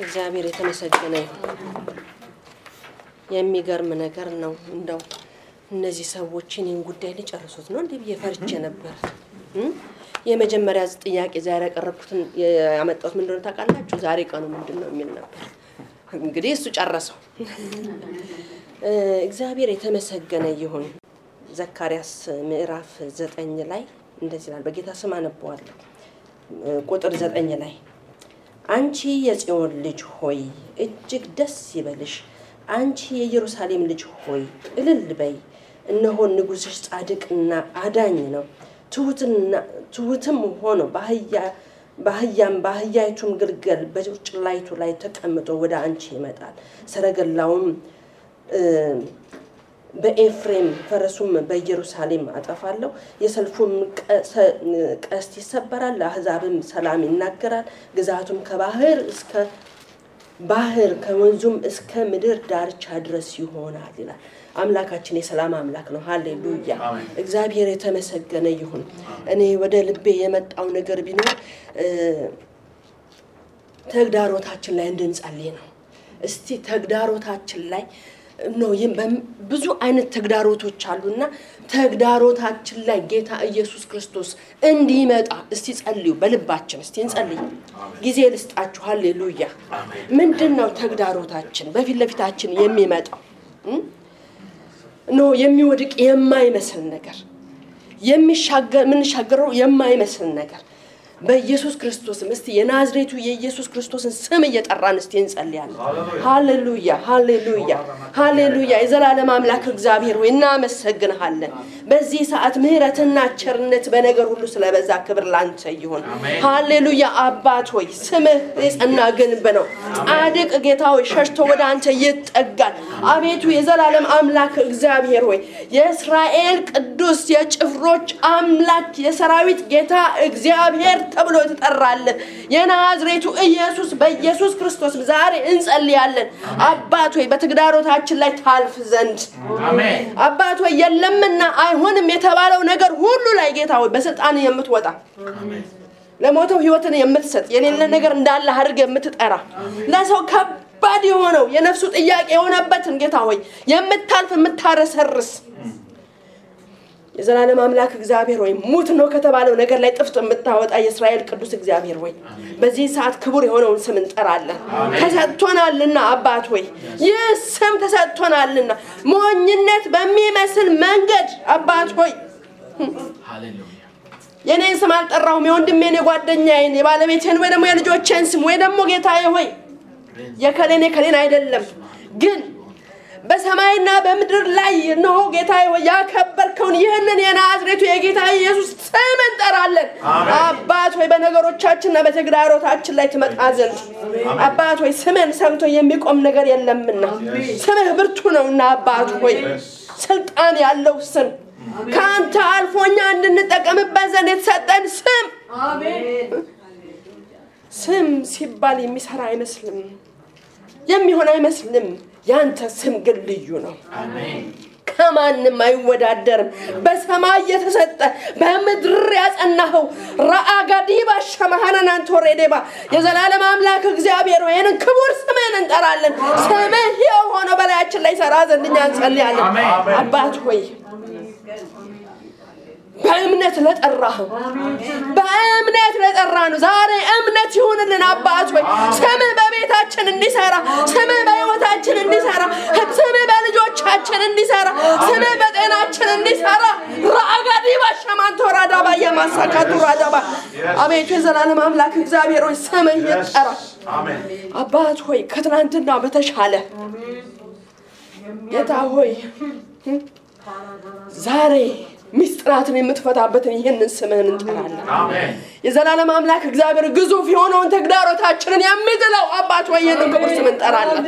እግዚአብሔር የተመሰገነ ይሁን። የሚገርም ነገር ነው። እንደው እነዚህ ሰዎችን ጉዳይ ሊጨርሱት ነው እንዴ በየፈርቼ ነበር። የመጀመሪያ ጥያቄ ዛሬ ያቀረብኩትን ያመጣሁት ምንድነው ታውቃላችሁ? ዛሬ ቀኑ ምንድነው የሚል ነበር። እንግዲህ እሱ ጨረሰው። እግዚአብሔር የተመሰገነ ይሁን። ዘካርያስ ምዕራፍ 9 ላይ እንደዚህ ይላል። በጌታ ስም አነባዋለሁ። ቁጥር 9 ላይ አንቺ የጽዮን ልጅ ሆይ እጅግ ደስ ይበልሽ፣ አንቺ የኢየሩሳሌም ልጅ ሆይ እልል በይ፣ እነሆ ንጉሥሽ ጻድቅና አዳኝ ነው፣ ትሁትም ሆኖ በአህያይቱም ግልገል በጭላይቱ ላይ ተቀምጦ ወደ አንቺ ይመጣል። ሰረገላውም በኤፍሬም ፈረሱም በኢየሩሳሌም አጠፋለሁ። የሰልፉም ቀስት ይሰበራል፣ ለአሕዛብም ሰላም ይናገራል። ግዛቱም ከባህር እስከ ባህር ከወንዙም እስከ ምድር ዳርቻ ድረስ ይሆናል ይላል። አምላካችን የሰላም አምላክ ነው። ሃሌሉያ! እግዚአብሔር የተመሰገነ ይሁን። እኔ ወደ ልቤ የመጣው ነገር ቢኖር ተግዳሮታችን ላይ እንድንጸልይ ነው። እስቲ ተግዳሮታችን ላይ ነው ብዙ አይነት ተግዳሮቶች አሉና ተግዳሮታችን ላይ ጌታ ኢየሱስ ክርስቶስ እንዲመጣ እስቲ ጸልዩ። በልባችን እስቲ እንጸልይ። ጊዜ ልስጣችሁ። ሃሌሉያ! ምንድነው ተግዳሮታችን? በፊት ለፊታችን የሚመጣው ነው የሚወድቅ የማይመስል ነገር፣ የምንሻገረው የማይመስል ነገር በኢየሱስ ክርስቶስ እስቲ የናዝሬቱ የኢየሱስ ክርስቶስን ስም እየጠራን እስቲ እንጸልያለን። ሃሌሉያ! ሃሌሉያ! ሃሌሉያ! የዘላለም አምላክ እግዚአብሔር ሆይ እናመሰግንሃለን። በዚህ ሰዓት ምህረትና ቸርነት በነገር ሁሉ ስለበዛ ክብር ላንተ ይሁን። ሃሌሉያ! አባት ሆይ ስምህ የጸና ግንብ ነው። ጻድቅ ጌታ ሆይ ሸሽቶ ወደ አንተ ይጠጋል። አቤቱ የዘላለም አምላክ እግዚአብሔር ሆይ የእስራኤል ቅዱስ የጭፍሮች አምላክ የሰራዊት ጌታ እግዚአብሔር ተብሎ ተጠራለ። የናዝሬቱ ኢየሱስ በኢየሱስ ክርስቶስ ዛሬ እንጸልያለን። አባት ሆይ በተግዳሮታችን ላይ ታልፍ ዘንድ አሜን። አባት ሆይ የለምና አይሆንም የተባለው ነገር ሁሉ ላይ ጌታ ሆይ በስልጣን የምትወጣ አሜን። ለሞተው ህይወትን የምትሰጥ የሌለ ነገር እንዳለ አድርገ የምትጠራ ለሰው ከባድ የሆነው የነፍሱ ጥያቄ የሆነበትን ጌታ ሆይ የምታልፍ የምታረሰርስ የዘላለም አምላክ እግዚአብሔር ሆይ ሙት ነው ከተባለው ነገር ላይ ጥፍጥ የምታወጣ የእስራኤል ቅዱስ እግዚአብሔር ሆይ በዚህ ሰዓት ክቡር የሆነውን ስም እንጠራለን። ተሰጥቶናልና አባት ሆይ ይህ ስም ተሰጥቶናልና ሞኝነት በሚመስል መንገድ አባት ሆይ ሃሌሉያ የኔን ስም አልጠራሁም፣ የወንድሜን የጓደኛዬን የባለቤቴን ወይ ደግሞ የልጆቼን ስም ወይ ደግሞ ጌታዬ ሆይ የከሌን አይደለም ግን በሰማይና በምድር ላይ ነው ጌታዬ ሆይ ያከበርከውን ይህንን የናዝሬቱ የጌታ ኢየሱስ ስም እንጠራለን። አባት ሆይ በነገሮቻችንና በተግዳሮታችን ላይ ትመጣ ዘንድ አባት ሆይ ስምን ሰምቶ የሚቆም ነገር የለምና ስምህ ብርቱ ነውና አባት ሆይ ስልጣን ያለው ስም ካንተ አልፎኛ እንድንጠቀምበት ዘንድ የተሰጠን ስም አሜን። ስም ሲባል የሚሰራ አይመስልም፣ የሚሆን አይመስልም። ያንተ ስም ግን ልዩ ነው። አሜን። ከማንም አይወዳደርም። በሰማይ የተሰጠ በምድር ያጸናኸው ራአጋዲባ ሸማሃናን ቶሬዴባ የዘላለም አምላክ እግዚአብሔር ሆይ ይህንን ክቡር ስምህን እንጠራለን። ስምህ የሆነ በላያችን ላይ ሰራ ዘንድ እኛ እንጸልያለን። አባት ሆይ በእምነት ለጠራኸው በእምነት ለጠራነው ዛሬ እምነት ይሁንልን። አባት ሆይ ስምህ በቤታችን እንዲሰራ፣ ስምህ በሕይወታችን እንዲሰራ፣ ስምህ በልጆቻችን እንዲሰራ፣ ስምህ በጤናችን እንዲሰራ ራጋዲ ባሻማን ተራዳባ ያማሳካቱ ራዳባ አቤቱ የዘላለም አምላክ እግዚአብሔር ሆይ ስምህ ይጠራ። አሜን። አባት ሆይ ከትናንትና በተሻለ ጌታ ሆይ ዛሬ ሚስጥራትን የምትፈታበትን ይሄንን ስምህን እንጠራለን። አሜን። የዘላለም አምላክ እግዚአብሔር ግዙፍ የሆነውን ተግዳሮታችንን የሚጥለው አባት ሆይ ይሄንን ክቡር ስም እንጠራለን።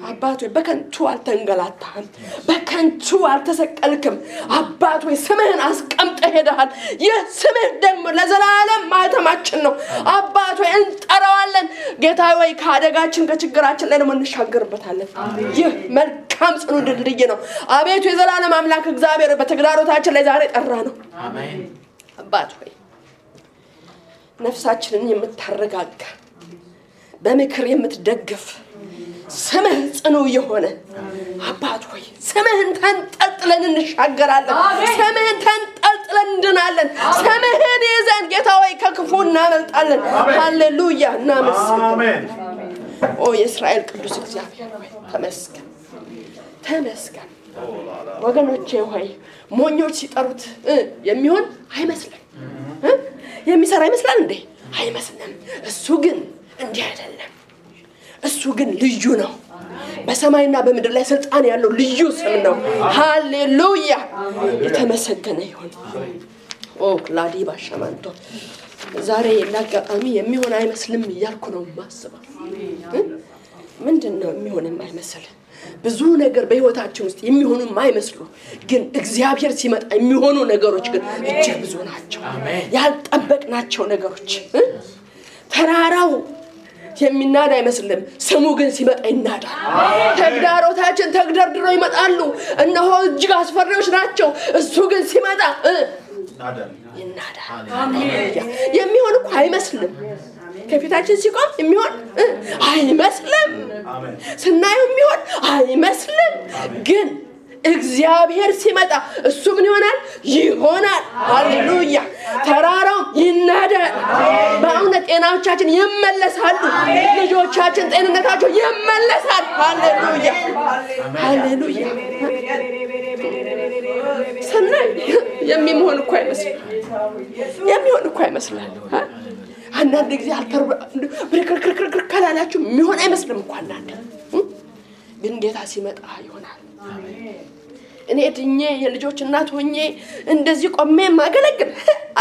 አባት ሆይ በከንቱ አልተንገላታህም፣ በከንቱ አልተሰቀልክም። አባት ሆይ ስምህን አስቀምጠህ ሄደሃል። ይህ ስምህ ደግሞ ለዘላለም ማህተማችን ነው። አባት ሆይ እንጠራዋለን። ጌታ ሆይ ከአደጋችን ከችግራችን ላይ ደግሞ እንሻገርበታለን። ይህ መልካም ጽኑ ድልድይ ነው። አቤቱ የዘላለም አምላክ እግዚአብሔር በተግዳሮታችን ላይ ዛሬ ጠራ ነው። አሜን። አባት ሆይ ነፍሳችንን የምታረጋጋ በምክር የምትደግፍ ስምህ ጽኑ የሆነ አባት ሆይ ስምህን ተንጠልጥለን እንሻገራለን ስምህን ተንጠልጥለን እንድናለን ስምህን ይዘን ጌታ ሆይ ከክፉ እናመልጣለን ሃሌሉያ እናመስግን ኦ የእስራኤል ቅዱስ እግዚአብሔር ሆይ ተመስገን ወገኖቼ ሆይ ሞኞች ሲጠሩት የሚሆን አይመስልም የሚሰራ ይመስላል እንዴ አይመስልም እሱ ግን እንዲህ አይደለም እሱ ግን ልዩ ነው በሰማይና በምድር ላይ ስልጣን ያለው ልዩ ስም ነው ሃሌሉያ የተመሰገነ ይሁን ኦ ክላዲ ባሻማንቶ ዛሬ ለአጋጣሚ የሚሆን አይመስልም እያልኩ ነው ማስበው ምንድነው የሚሆን የማይመስል ብዙ ነገር በህይወታችን ውስጥ የሚሆኑ የማይመስሉ ግን እግዚአብሔር ሲመጣ የሚሆኑ ነገሮች ግን እጅግ ብዙ ናቸው ያልጠበቅናቸው ነገሮች ተራራው የሚናዳ አይመስልም ስሙ ግን ሲመጣ ይናዳል ተግዳሮታችን ተግደርድረው ይመጣሉ እነሆ እጅግ አስፈሪዎች ናቸው እሱ ግን ሲመጣ ይናዳል የሚሆን እኮ አይመስልም ከፊታችን ሲቆም የሚሆን አይመስልም ስናየው የሚሆን አይመስልም ግን እግዚአብሔር ሲመጣ እሱ ምን ይሆናል ሃሌሉያ ተራራው ይናዳል በእውነት ጤናዎቻችን ይመለሳሉ ልጆቻችን ጤንነታቸው ይመለሳል ሃሌሉያ ሰናይ የሚሆን እኮ አይመስልም አንዳንድ ጊዜ ብርክርክርክር ካላላችሁ የሚሆን አይመስልም እንኳን አንዳንድ ግን ጌታ ሲመጣ ይሆናል እኔ እድኜ የልጆች እናት ሆኜ እንደዚህ ቆሜ ማገለግል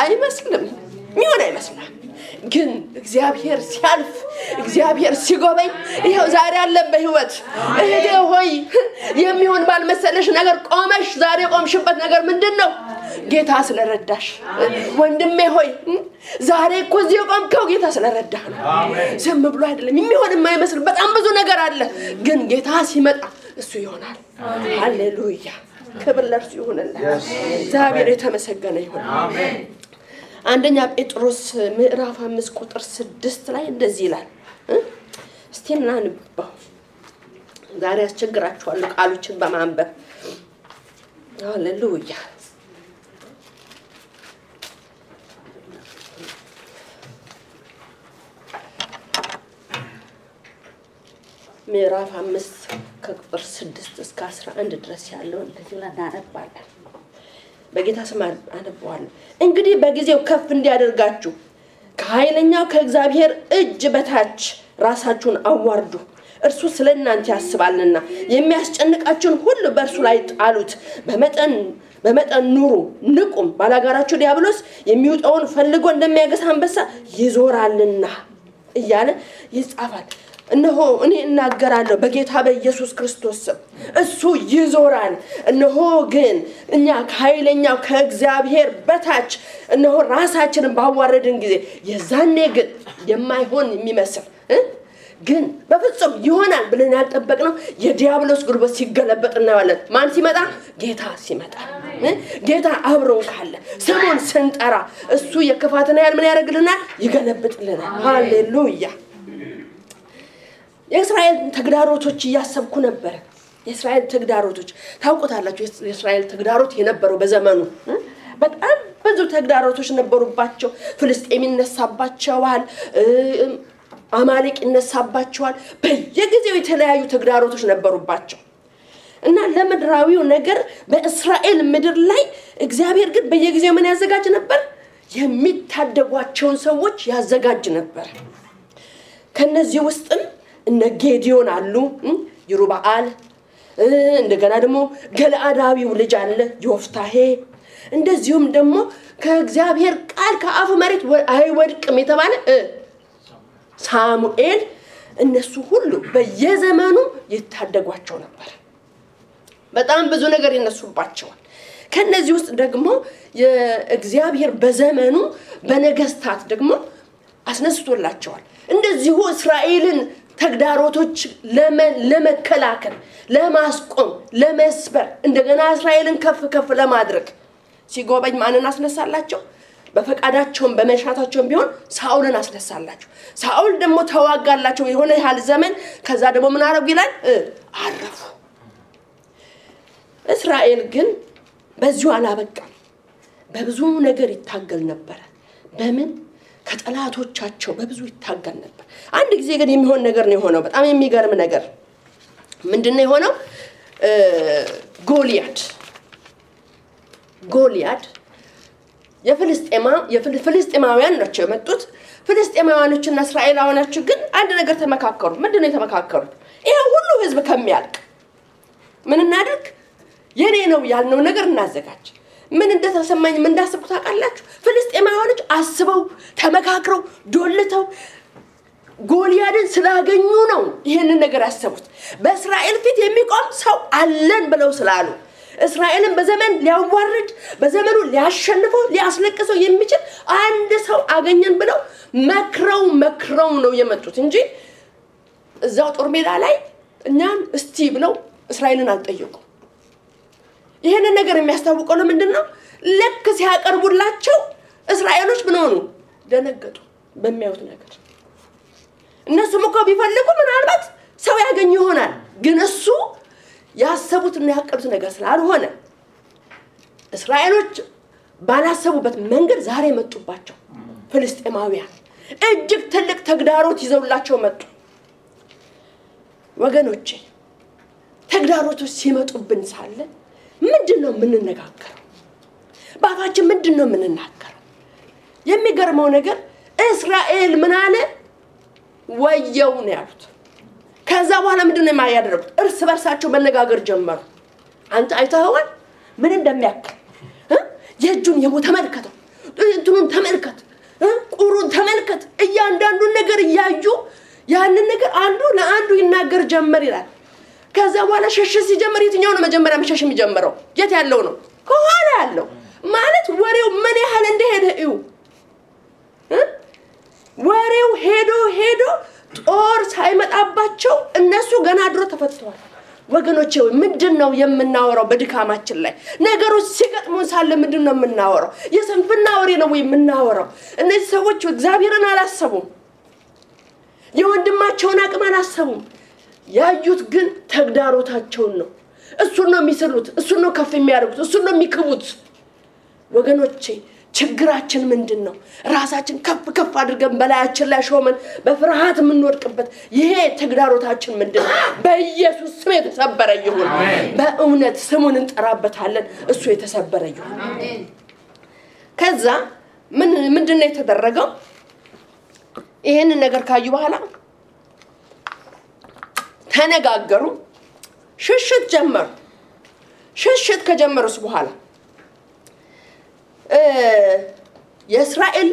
አይመስልም የሚሆን አይመስልም ግን እግዚአብሔር ሲያልፍ እግዚአብሔር ሲጎበኝ ይሄው ዛሬ አለ በህይወት እህቴ ሆይ የሚሆን ባልመሰለሽ ነገር ቆመሽ ዛሬ ቆምሽበት ነገር ምንድነው ጌታ ስለረዳሽ ወንድሜ ሆይ ዛሬ እኮ እዚህ ቆምከው ጌታ ስለረዳህ ነው ዝም ብሎ አይደለም የሚሆን የማይመስል በጣም ብዙ ነገር አለ ግን ጌታ ሲመጣ እሱ ይሆናል ሃሌሉያ ክብር ለእርሱ ይሁንልን እግዚአብሔር የተመሰገነ ይሁን አሜን አንደኛ ጴጥሮስ ምዕራፍ 5 ቁጥር 6 ላይ እንደዚህ ይላል እስቲ እናንብበው ዛሬ አስቸግራችኋለሁ ቃሎችን በማንበብ ሃሌሉያ ምዕራፍ 5 ከቁጥር 6 እስከ 11 ድረስ ያለው እንደዚህ እናነባለን በጌታ ስም አነባዋለሁ እንግዲህ በጊዜው ከፍ እንዲያደርጋችሁ ከኃይለኛው ከእግዚአብሔር እጅ በታች ራሳችሁን አዋርዱ እርሱ ስለእናንተ ያስባልና የሚያስጨንቃችሁን ሁሉ በእርሱ ላይ ጣሉት በመጠን ኑሩ ንቁም ባላጋራችሁ ዲያብሎስ የሚውጣውን ፈልጎ እንደሚያገሳ አንበሳ ይዞራልና እያለ ይጻፋል እነሆ እኔ እናገራለሁ በጌታ በኢየሱስ ክርስቶስ እሱ ይዞራል እነሆ ግን እኛ ከኃይለኛው ከእግዚአብሔር በታች እነሆ ራሳችንን ባዋረድን ጊዜ የዛኔ ግን የማይሆን የሚመስል ግን በፍጹም ይሆናል ብለን ያልጠበቅነው የዲያብሎስ ጉልበት ሲገለበጥ እናያለን ማን ሲመጣ ጌታ ሲመጣ ጌታ አብሮን ካለ ስሙን ስንጠራ እሱ የክፋትና ያል ምን ያደርግልናል ይገለብጥልናል ሃሌሉያ የእስራኤል ተግዳሮቶች ያሰብኩ ነበር የእስራኤል ተግዳሮቶች ታውቁታላችሁ የእስራኤል ተግዳሮት የነበረው በዘመኑ በጣም ብዙ ተግዳሮቶች ነበሩባቸው ፍልስጤም ይነሳባቸዋል አማሌቅ ይነሳባቸዋል በየጊዜው የተለያዩ ተግዳሮቶች ነበሩባቸው እና ለምድራዊው ነገር በእስራኤል ምድር ላይ እግዚአብሔር ግን በየጊዜው ምን ያዘጋጅ ነበር የሚታደጓቸውን ሰዎች ያዘጋጅ ነበር ከነዚህ ውስጥም እነ ጌዲዮን አሉ ይሩባአል እንደገና ደግሞ ገለአዳዊው ልጅ አለ ዮፍታሄ እንደዚሁም ደግሞ ከእግዚአብሔር ቃል ከአፉ መሬት አይወድቅም የተባለ ሳሙኤል እነሱ ሁሉ በየዘመኑ ይታደጓቸው ነበር በጣም ብዙ ነገር ይነሱባቸዋል ከነዚህ ውስጥ ደግሞ የእግዚአብሔር በዘመኑ በነገስታት ደግሞ አስነስቶላቸዋል እንደዚሁ እስራኤልን ተግዳሮቶች ለመከላከል ለማስቆም ለመስበር እንደገና እስራኤልን ከፍ ለማድረግ ሲጎበኝ ማንን አስነሳላቸው በፈቃዳቸውም በመሻታቸውም ቢሆን ሳኦልን አስነሳላቸው። ሳኦል ደግሞ ተዋጋላቸው የሆነ ያህል ዘመን። ከዛ ደግሞ ምን አረጉ ይላል? አረፉ። እስራኤል ግን በዚሁ አላበቃም። በብዙ ነገር ይታገል ነበር። በምን? ከጠላቶቻቸው በብዙ ይታገል ነበር። አንድ ጊዜ ግን የሚሆን ነገር ነው የሆነው። በጣም የሚገርም ነገር ምንድነው የሆነው? ጎልያድ የፍልስጤማውያን ናቸው የመጡት። ፍልስጤማውያኖችና እስራኤላውያኖች ግን አንድ ነገር ተመካከሩ። ምንድነው የተመካከሩት? ይሄ ሁሉ ህዝብ ከሚያልቅ ምን እናድርግ? የኔ ነው ያልነው ነገር እናዘጋጅ። ምን እንደተሰማኝ ምን እንዳሰብኩ ታውቃላችሁ? ፍልስጤማውያኖች አስበው ተመካክረው ዶልተው ጎልያድን ስላገኙ ነው ይሄንን ነገር ያሰቡት። በእስራኤል ፊት የሚቆም ሰው አለን ብለው ስላሉ እስራኤልን በዘመን ሊያዋርድ በዘመኑ ሊያሸንፈው ሊያስለቅሰው የሚችል አንድ ሰው አገኘን ብለው መክረው ነው የመጡት እንጂ እዛው ጦር ሜዳ ላይ እኛን እስቲ ብለው እስራኤልን አልጠየቁም። ይሄንን ነገር የሚያስታውቀው ለምንድነው? ለክ ሲያቀርቡላቸው እስራኤሎች ምን ሆኑ? ደነገጡ በሚያዩት ነገር። እነሱም እኮ ቢፈልጉ ምናልባት ሰው ያገኙ ይሆናል። ግን እሱ ያሰቡትና ያቀዱት ነገር ስላልሆነ እስራኤሎች ባላሰቡበት መንገድ ዛሬ መጡባቸው። ፍልስጤማውያን እጅግ ትልቅ ተግዳሮት ይዘውላቸው መጡ። ወገኖቼ ተግዳሮቶች ሲመጡብን ሳለ ምንድነው የምንነጋገረው? ባፋችን ምንድነው የምንናገረው? የሚገርመው ነገር እስራኤል ምን አለ? ወየው ነው ያሉት። ከዛ በኋላ ምንድነው የማያደርጉት? እርስ በርሳቸው መነጋገር ጀመሩ። አንተ አይተኸዋል ምን እንደሚያክል? የእጁን የቦታ ተመልከተው፣ እንትኑን ተመልከት፣ ቁሩን ተመልከት። እያንዳንዱን ነገር እያዩ ያንን ነገር አንዱ ለአንዱ ይናገር ጀመር ይላል። ከዛ በኋላ ሸሽ ሲጀምር የትኛው ነው መጀመሪያ መሸሽ የሚጀምረው? የት ያለው ነው? ከኋላ ያለው ማለት ወሬው ምን ያህል እንደሄደ እዩ። ወሬው ሄዶ ጦር ሳይመጣባቸው እነሱ ገና ድሮ ተፈተዋል። ወገኖቼ ምንድነው የምናወራው? በድካማችን ላይ ነገሮች ሲገጥሙን ሳለ ምንድነው የምናወራው? የስንፍና ወሬ ነው ወይ የምናወራው? እነዚህ ሰዎች እግዚአብሔርን አላሰቡም። የወንድማቸውን አቅም አላሰቡም። ያዩት ግን ተግዳሮታቸውን ነው። እሱን ነው የሚስሉት፣ እሱን ነው ከፍ የሚያደርጉት፣ እሱን ነው የሚክቡት። ወገኖቼ ችግራችን ምንድነው? ራሳችን ከፍ አድርገን በላያችን ላይ ሾመን በፍርሃት የምንወድቅበት ይሄ ተግዳሮታችን ምንድነው? በኢየሱስ ስም የተሰበረ ይሁን። በእውነት ስሙን እንጠራበታለን። እሱ የተሰበረ ይሁን። ከዛ ምንድነው የተደረገው? ይሄንን ነገር ካዩ በኋላ ተነጋገሩ፣ ሽሽት ጀመሩ። ሽሽት ከጀመሩስ በኋላ የእስራኤል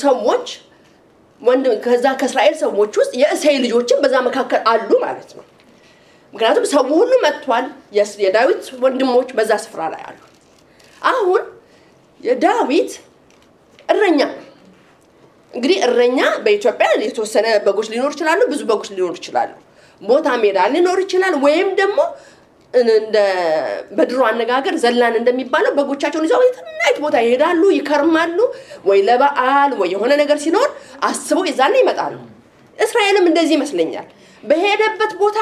ሰዎች ከዛ ከእስራኤል ሰዎች ውስጥ የእሴይ ልጆችን በዛ መካከል አሉ ማለት ነው። ምክንያቱም ሰው ሁሉ መጥቷል። የዳዊት ወንድሞች በዛ ስፍራ ላይ አሉ። አሁን የዳዊት እረኛ እንግዲህ እረኛ በኢትዮጵያ የተወሰነ በጎች ሊኖር ይችላሉ፣ ብዙ በጎች ሊኖር ይችላሉ። ቦታ ሜዳ ሊኖር ይችላል፣ ወይም ደግሞ እንደ በድሮ አነጋገር ዘላን እንደሚባለው በጎቻቸውን ይዘው የትናይት ቦታ ይሄዳሉ፣ ይከርማሉ፣ ወይ ለበዓል ወይ የሆነ ነገር ሲኖር አስበው ይዛና ይመጣሉ። እስራኤልም እንደዚህ ይመስለኛል። በሄደበት ቦታ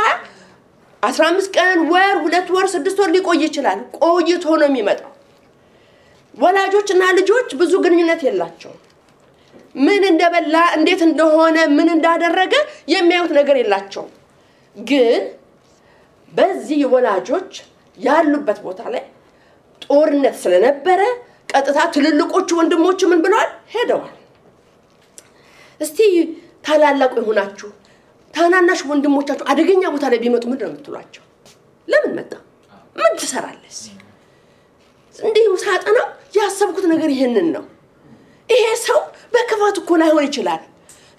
15 ቀን፣ ወር፣ 2 ወር፣ 6 ወር ሊቆይ ይችላል። ቆይቶ ነው የሚመጣው። ወላጆችና ልጆች ብዙ ግንኙነት የላቸውም። ምን እንደበላ እንዴት እንደሆነ ምን እንዳደረገ የሚያዩት ነገር የላቸውም። ግን በዚህ ወላጆች ያሉበት ቦታ ላይ ጦርነት ስለነበረ ቀጥታ ትልልቆቹ ወንድሞች ምን ብለዋል? ሄደዋል። እስቲ ታላላቁ ይሆናችሁ ታናናሽ ወንድሞቻችሁ አደገኛ ቦታ ላይ ቢመጡ ምንድን ነው የምትሏቸው? ለምን መጣ? ምን ትሰራለህ? እንዲሁ ሳጠና ያሰብኩት ነገር ይሄንን ነው። ይሄ ሰው በክፋት እኮ ላይሆን ይችላል።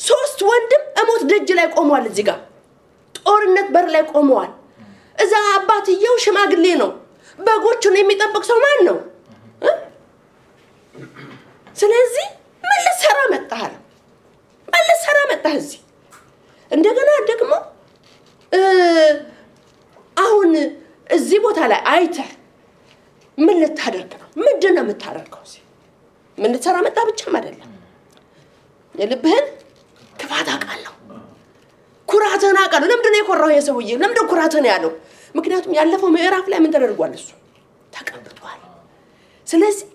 3 ወንድም እሞት ደጅ ላይ ቆመዋል። እዚህ ጋር ጦርነት በር ላይ ቆመዋል። እዛ አባትየው ሽማግሌ ነው። በጎቹን የሚጠብቅ ሰው ማን ነው? ስለዚህ ምን ልትሰራ መጣህ? ምን ልትሰራ መጣህ እዚህ? እንደገና ደግሞ አሁን እዚህ ቦታ ላይ አይተህ ምን ልታደርግ ነው? ምንድነው የምታደርገው እዚህ? ምን ልትሰራ መጣ ብቻም አይደለም የልብህን ክፋት አውቃለሁ ኩራትህን አውቃለሁ ለምንድን ነው የኮራው የሰውዬ ለምንድን ነው ኩራትህን ያለው ምክንያቱም ያለፈው ምዕራፍ ላይ ምን ተደርጓል እሱ ተቀብቷል ስለዚህ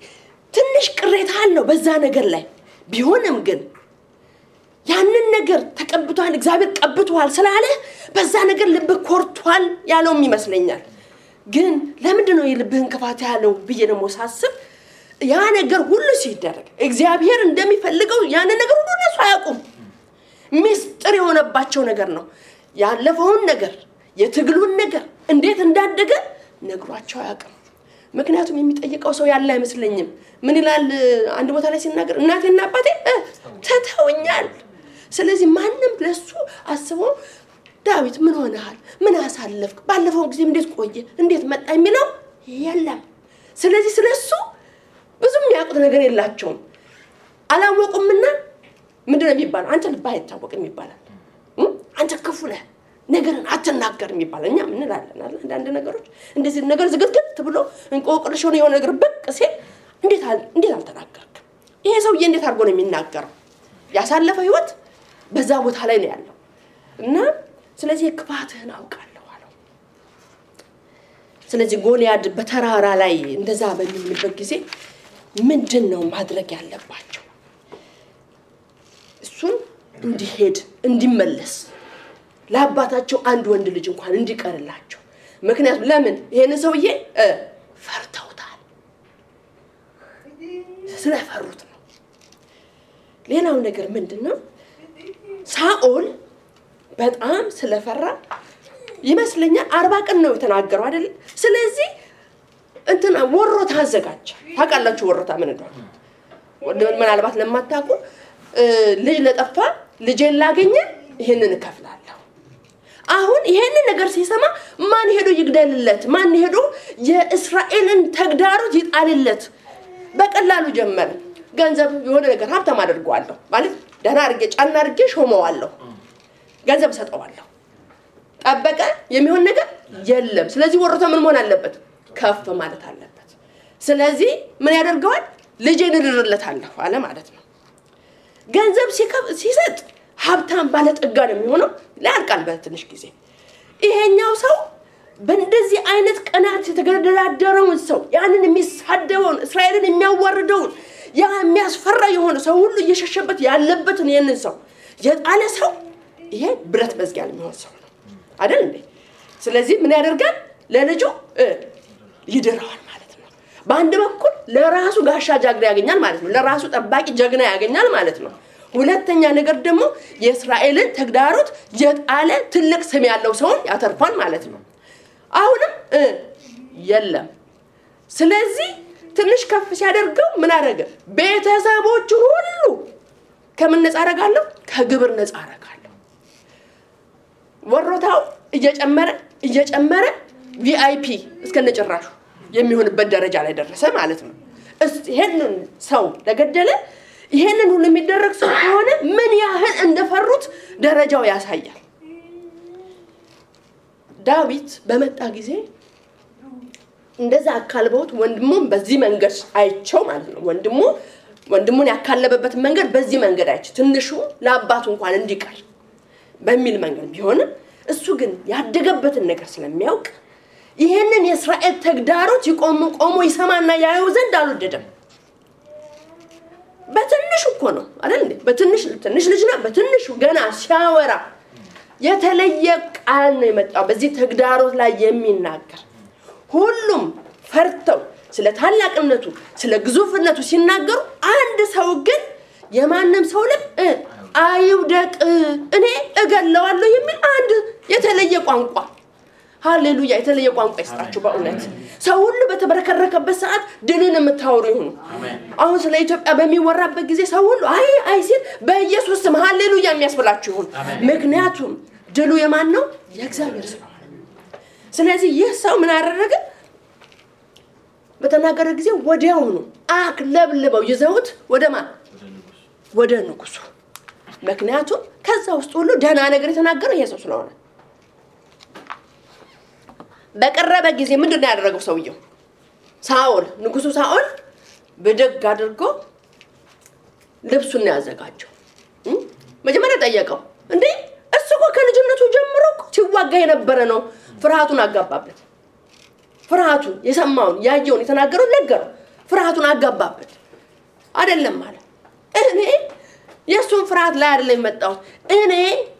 ትንሽ ቅሬታ አለው በዛ ነገር ላይ ቢሆንም ግን ያንን ነገር ተቀብቷል እግዚአብሔር ቀብቷል ስላለ በዛ ነገር ልብ ኮርቷል ያለው ይመስለኛል ግን ለምንድን ነው የልብህን ክፋት ያለው ብዬ ደግሞ ሳስብ ያ ነገር ሁሉ ሲደረግ እግዚአብሔር እንደሚፈልገው ያን ነገር ሁሉ እነሱ አያውቁም ሚስጥር የሆነባቸው ነገር ነው ያለፈውን ነገር የትግሉን ነገር እንዴት እንዳደገ ነግሯቸው አያውቅም ምክንያቱም የሚጠይቀው ሰው ያለ አይመስለኝም ምን ይላል አንድ ቦታ ላይ ሲናገር እናቴና አባቴ ተተውኛል ስለዚህ ማንንም ለሱ አስቦ ዳዊት ምን ሆነሃል ምን አሳለፍክ ባለፈው ጊዜ እንዴት ቆየ እንዴት መጣ የሚለው የለም ስለዚህ ስለሱ ብዙም ያውቁት ነገር የላቸውም አላወቁምና ምንድነው የሚባለው አንተ ልባ አይታወቅም ይባላል አንተ ክፉ ነህ ነገርን አትናገርም ይባላል እኛ ምን እንላለን አይደል አንድ ነገሮች እንደዚህ ነገር ዝግትግት ብሎ እንቆቅልሽ ሆነ የሆነ ነገር በቅ ሲል እንዴት አልተናገርክ ይሄ ሰውዬ እንዴት አድርጎ ነው የሚናገረው ያሳለፈው ህይወት በዛ ቦታ ላይ ነው ያለው እና ስለዚህ ክፋትህን አውቃለሁ አለው ስለዚህ ጎልያድ በተራራ ላይ እንደዛ በሚልበት ጊዜ ምንድነው ማድረግ ያለባቸው እሱን እንዲሄድ እንዲመለስ ለአባታቸው አንድ ወንድ ልጅ እንኳን እንዲቀርላቸው ምክንያቱም ለምን ይሄን ሰውዬ ፈርተውታል ስለፈሩት ነው ሌላው ነገር ምንድነው ሳኦል በጣም ስለፈራ ይመስለኛል 40 ቀን ነው የተናገረው አይደል ስለዚህ እንትና ወሮታ አዘጋጀ ታውቃላችሁ ወሮታ ምን እንደሆነ ምናልባት ለማታውቁ ልጅ ለጠፋ ልጄን ላገኘ ይሄንን እከፍላለሁ አሁን ይሄንን ነገር ሲሰማ ማን ሄዶ ይግደልለት ማን ሄዶ የእስራኤልን ተግዳሮት ይጣልለት በቀላሉ ጀመረ ገንዘብ የሆነ ነገር ሀብታም አድርጓለሁ ማለት ደህና አድርጌ ጫና አድርጌ ሾመዋለሁ ገንዘብ ሰጠዋለሁ ጠበቀ የሚሆን ነገር የለም ስለዚህ ወሮታ ምን መሆን አለበት ከፍ ማለት አለበት ስለዚህ ምን ያደርጋል ልጄን እድርለታለሁ አለ ማለት ነው ገንዘብ ሲሰጥ ሀብታም ባለጠጋ ነው የሚሆነው ለአልቃል በትንሽ ጊዜ ይሄኛው ሰው በእንደዚህ አይነት ቀናት የተገደላደረውን ሰው ያንን የሚሳደበውን እስራኤልን የሚያዋርደውን ያ የሚያስፈራ የሆነ ሰው ሁሉ እየሸሸበት ያለበትን የነን ሰው የጣለ ሰው ይሄ ብረት መዝጊያ የሚሆን ሰው ነው አይደል እንዴ ስለዚህ ምን ያደርጋል ለልጁ ይደራዋል ማለት ነው በአንድ በኩል ለራሱ ጋሻ ጃግሬ ያገኛል ማለት ነው ለራሱ ጠባቂ ጀግና ያገኛል ማለት ነው ሁለተኛ ነገር ደግሞ የእስራኤልን ተግዳሮት የጣለ ትልቅ ስም ያለው ሰው ያተርፋል ማለት ነው አሁንም የለም ስለዚህ ትንሽ ከፍ ሲያደርገው ምን አደረገ ቤተሰቦቹ ሁሉ ከምን ነፃ አረጋለሁ ከግብር ነፃ አረጋለሁ ወሮታው እየጨመረ ቪአይፒ እስከነጨራሹ የሚሆንበት ደረጃ ላይ ደረሰ ማለት ነው ይሄንን ሰው ለገደለ ይሄንን ሁሉ የሚደረግ ሰው ሆነ ምን ያህል እንደፈሩት ደረጃው ያሳያል ዳዊት በመጣ ጊዜ እንደዛ አካልበውት ወንድሙን በዚህ መንገድ አይቸው ማለት ነው ወንድሙን ያካለበበት መንገድ በዚህ መንገድ አይች ትንሹ ለአባቱ እንኳን እንዲቀር በሚል መንገድ ቢሆን እሱ ግን ያደገበትን ነገር ስለሚያውቅ ይሄንን የእስራኤል ተግዳሮት ቆሞ ይሰማና ያየው ዘንድ አልወደደም በትንሹ እኮ ነው አይደል እንዴ በትንሽ ልጅና በትንሹ ገና ሲያወራ የተለየ ቃል ነው የመጣው በዚህ ተግዳሮት ላይ የሚናገር ሁሉም ፈርተው ስለ ታላቅነቱ ስለ ግዙፍነቱ ሲናገሩ አንድ ሰው ግን የማንም ሰው ልብ አይውደቅ እኔ እገለዋለሁ የሚል አንድ የተለየ ቋንቋ ሃሌሉያ የተለየ ቋንቋ ይስጣችሁ በእውነት ሰው ሁሉ በተበረከረከበት ሰዓት ድልን የምታወሩ ይሁኑ አሁን ስለ ኢትዮጵያ በሚወራበት ጊዜ ሰው ሁሉ አይ ሲል በኢየሱስ ስም ሃሌሉያ የሚያስብላችሁ ይሁን ምክንያቱም ድሉ የማን ነው የእግዚአብሔር ስለሆነ ስለዚህ ይህ ሰው ምን አደረገ በተናገረ ጊዜ ወዲያውኑ አክለብልበው ይዘውት ወደ ንጉሱ ምክንያቱም ከዛ ውስጥ ሁሉ ደህና ነገር የተናገረው ይሄ ሰው ስለሆነ በቀረበ ጊዜ ምንድነው ያደረገው ሰውየው ንጉሱ ሳኦል በደግ አድርጎ ልብሱን ያዘጋጀው መጀመሪያ ጠየቀው እንዴ እሱ እኮ ከልጅነቱ ጀምሮ ሲዋጋ የነበረ ነው ፍርሃቱን አጋባበት ፍርሃቱን የሰማውን ያየውን የተናገረው ነገረው ፍርሃቱን አጋባበት አይደለም ማለት እኔ የሱን ፍርሃት ላይ አይደለም መጣው እኔ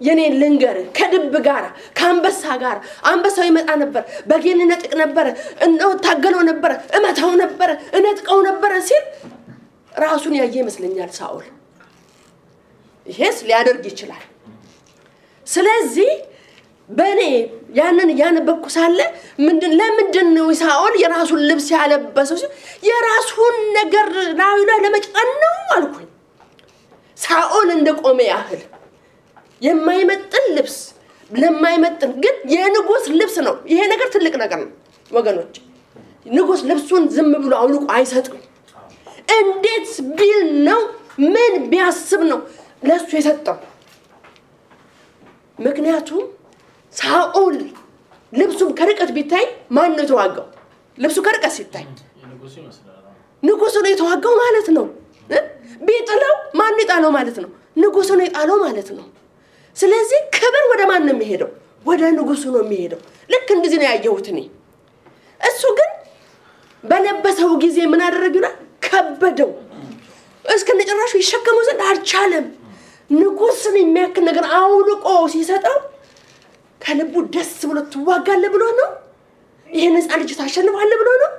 የኔን ልንገር ከድብ ጋር ከአንበሳ ጋር አንበሳው ይመጣ ነበር በጌን ነጥቅ ነበር እንደው ታገለው ነበር እመታው ነበር እነጥቀው ነበር ሲል ራሱን ያየ ይመስለኛል ሳኦል ይሄስ ሊያደርግ ይችላል ስለዚህ በኔ ያንን ያነበብኩ ሳለ ለምንድን ነው ሳኦል የራሱን ልብስ ያለበሰው የራሱን ነገር ላይ ለመጫን ነው አልኩኝ ሳኦል እንደቆመ ያህል የማይመጥን ልብስ ለማይመጥን ግን የንጉስ ልብስ ነው ይሄ ነገር ትልቅ ነገር ነው ወገኖች ንጉስ ልብሱን ዝም ብሎ አውልቆ አይሰጥም እንዴት ቢል ነው ምን ቢያስብ ነው ለሱ የሰጠው ምክንያቱም ሳኦል ልብሱም ከርቀት ቢታይ ማን ነው የተዋጋው ልብሱ ከርቀት ሲታይ ንጉሱ ነው የተዋጋው ማለት ነው ቢጥለው ማን ይጣለው ማለት ነው ንጉሱ ነው ይጣለው ማለት ነው ስለዚህ ክብር ወደ ማን ነው የሚሄደው ወደ ንጉሱ ነው የሚሄደው ልክ እንደዚህ ነው ያየሁት እኔ እሱ ግን በለበሰው ጊዜ ምን አደረገና ከበደው እስከነጨራሹ ይሸከመው ዘንድ አልቻለም ንጉስን የሚያክል ነገር አውልቆ ሲሰጠው ከልቡ ደስ ብሎ ተዋጋለ ብሎ ነው ይሄን ህፃን ልጅ ታሸንፋለህ ብሎ ነው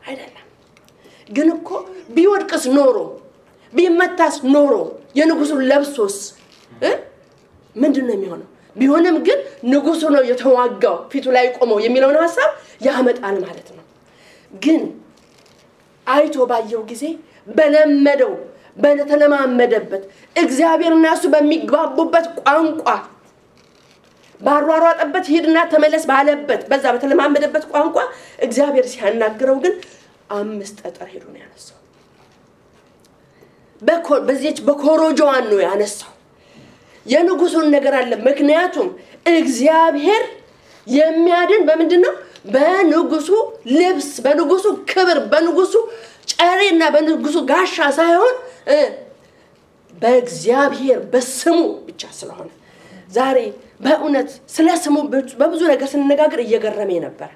አይደለም ግን እኮ ቢወድቅስ ኖሮ ቢመታስ ኖሮ የንጉሱን ለብሶስ ምንድነው የሚሆነው ቢሆንም ግን ንጉሱ ነው የተዋጋው ፊቱ ላይ ቆመው የሚለውን ሐሳብ ያመጣል ማለት ነው ግን አይቶ ባየው ጊዜ በለመደው በተለማመደበት እግዚአብሔርና እሱ በሚግባቡበት ቋንቋ ባሯሯጠበት ሄድና ተመለስ ባለበት በዛ በተለማመደበት ቋንቋ እግዚአብሔር ሲያናግረው ግን 5 ጠጠር ሄዶ ነው ያነሳው በዚህች በኮሮጆዋን ነው ያነሳው የንጉሱን ነገር አለ ምክንያቱም እግዚአብሔር የሚያድን በምንድነው በንጉሱ ልብስ በንጉሱ ክብር በንጉሱ ጨሬና በንጉሱ ጋሻ ሳይሆን በእግዚአብሔር በስሙ ብቻ ስለሆነ ዛሬ በእውነት ስለ ስሙ በብዙ ነገር ስንነጋገር እየገረመኝ ነበር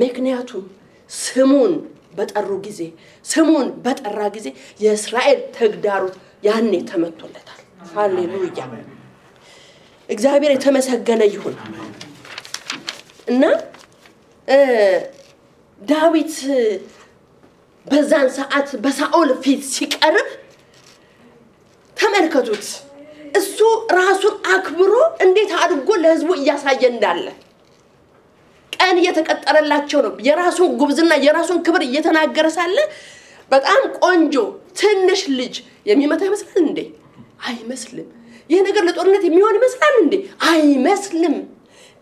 ምክንያቱም ስሙን በጠሩ ጊዜ ስሙን በጠራ ጊዜ የእስራኤል ተግዳሮት ያኔ ተመቶለታል ሃሌሉያ እግዚአብሔር የተመሰገነ ይሁን እና ዳዊት በዛን ሰዓት በሳኦል ፊት ሲቀርብ ተመልከቱት እሱ ራሱን አክብሮ እንዴት አድርጎ ለህዝቡ እያሳየ እንዳለ ቀን እየተቀጠረላቸው ነው የራሱን ጉብዝና የራሱን ክብር እየተናገረ ሳለ በጣም ቆንጆ ትንሽ ልጅ የሚመታ ይመስላል እንዴ አይመስልም ይሄ ነገር ለጦርነት የሚሆን ይመስላል እንዴ አይመስልም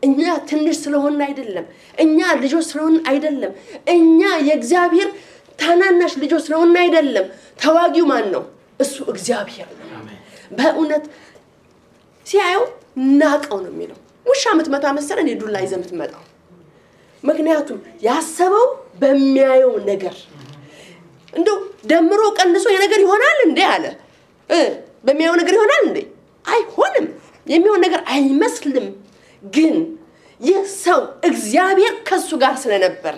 እኛ ትንሽ ስለሆነ አይደለም እኛ ልጆች ስለሆነ አይደለም እኛ የእግዚአብሔር ታናናሽ ልጆች ስለሆነ አይደለም ተዋጊው ማን ነው እሱ እግዚአብሔር ነው በእውነት ሲያየው ናቀው ነው የሚለው ውሻ ምትመታ መሰለ እንዴ ዱላ ይዘህ ምትመጣው ምክንያቱም ያሰበው በሚያየው ነገር እንደው ደምሮ ቀንሶ የነገር ይሆናል እንዴ አለ በሚያየው ነገር ይሆናል እንዴ አይሆንም የሚሆን ነገር አይመስልም ግን የሰው እግዚአብሔር ከሱ ጋር ስለነበር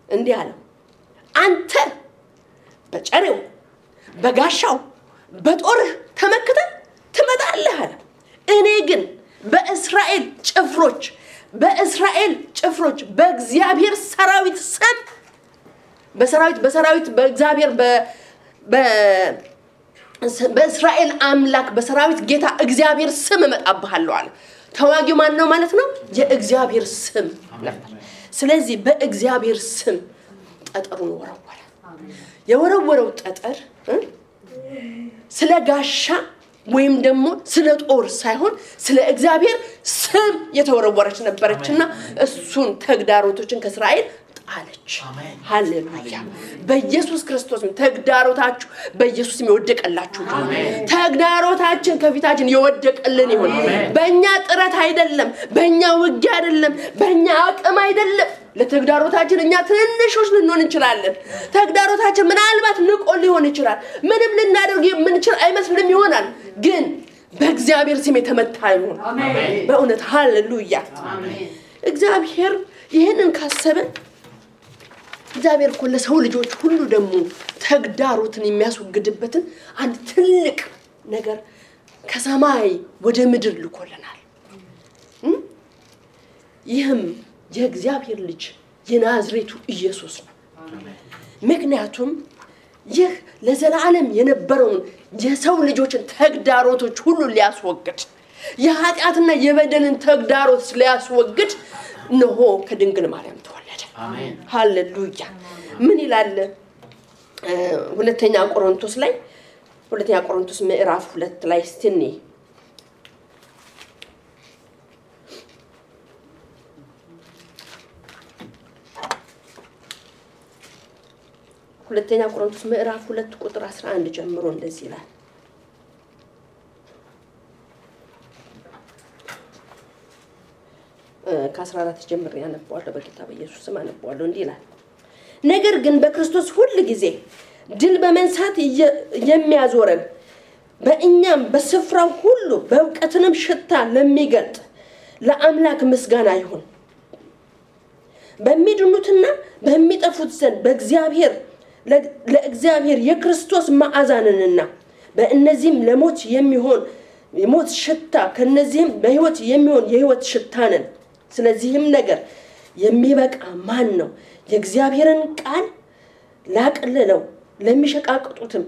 እንዲህ አለ አንተ በጨሬው በጋሻው በጦር ተመክተ ትመጣለህ አለ እኔ ግን በእስራኤል ጭፍሮች በእግዚአብሔር ሰራዊት ስም በሰራዊት በእግዚአብሔር በእስራኤል አምላክ በሰራዊት ጌታ እግዚአብሔር ስም መጣብሃለሁ አለ ተዋጊው ማን ነው ማለት ነው የእግዚአብሔር ስም ነበር ስለዚህ በእግዚአብሔር ስም ጠጠሩን ወረወረ የወረወረው ጠጠር ስለ ጋሻ ወይም ደግሞ ስለ ጦር ሳይሆን ስለ እግዚአብሔር ስም የተወረወረች ነበርችና እሱን ተግዳሮቶችን ከእስራኤል ጣለች ሃሌሉያ በኢየሱስ ክርስቶስ ተግዳሮታችሁ በኢየሱስ ይወደቀላችሁ ተግዳሮታችን ከፊታችን ይወደቀልን ይሁን በእኛ ጥረት አይደለም በእኛ ውጊያ አይደለም በእኛ አቅም አይደለም ለተግዳሮታችን እኛ ትንሾች ልንሆን እንችላለን ተግዳሮታችን ምናልባት ንቆ ሊሆን ይችላል ምንም ልናደርግ የምንችል አይመስልም ይሆናል ግን በእግዚአብሔር ስም የተመታ ይሁን አሜን በእውነት ሃሌሉያ አሜን እግዚአብሔር ይሄንን ካሰበ እግዚአብሔር ሁሉ ሰው ልጆች ሁሉ ደግሞ ተግዳሮትን የሚያስወግድበትን አንድ ትልቅ ነገር ከሰማይ ወደ ምድር ልኮልናል ይህም የእግዚአብሔር ልጅ የናዝሬቱ ኢየሱስ ነው ምክንያቱም ይህ ለዘላለም የነበረውን የሰው ልጆችን ተግዳሮቶች ሁሉ ሊያስወግድ የኃጢአትና የበደልን ተግዳሮት ሊያስወግድ ነው ከድንግል ማርያም ተወለደ አሜን ሃሌሉያ ምን ይላል ሁለተኛ ቆሮንቶስ ምዕራፍ 2 ላይ ስትኒ ሁለተኛ ቆሮንቶስ ምዕራፍ 2 ቁጥር 11 ጀምሮ እንደዚህ ይላል ከ14 ጀምሮ ያነባዋለሁ በጌታ በኢየሱስ ስም አነባዋለሁ እንዲህ ይላል ነገር ግን በክርስቶስ ሁሉ ጊዜ ድል በመንሳት የሚያዞረን በእኛም በስፍራው ሁሉ በእውቀትንም ሽታ ለሚገልጥ ለአምላክ ምስጋና ይሁን በሚድኑትና በሚጠፉት ዘንድ ለእግዚአብሔር የክርስቶስ መዓዛንንና በእነዚህም ለሞት የሚሆን የሞት ሽታ ከነዚህም በህይወት የሚሆን የህይወት ሽታ ነን ስለዚህም ነገር የሚበቃ ማን ነው የእግዚአብሔርን ቃል ላቀለለው ለሚሸቃቅጡትም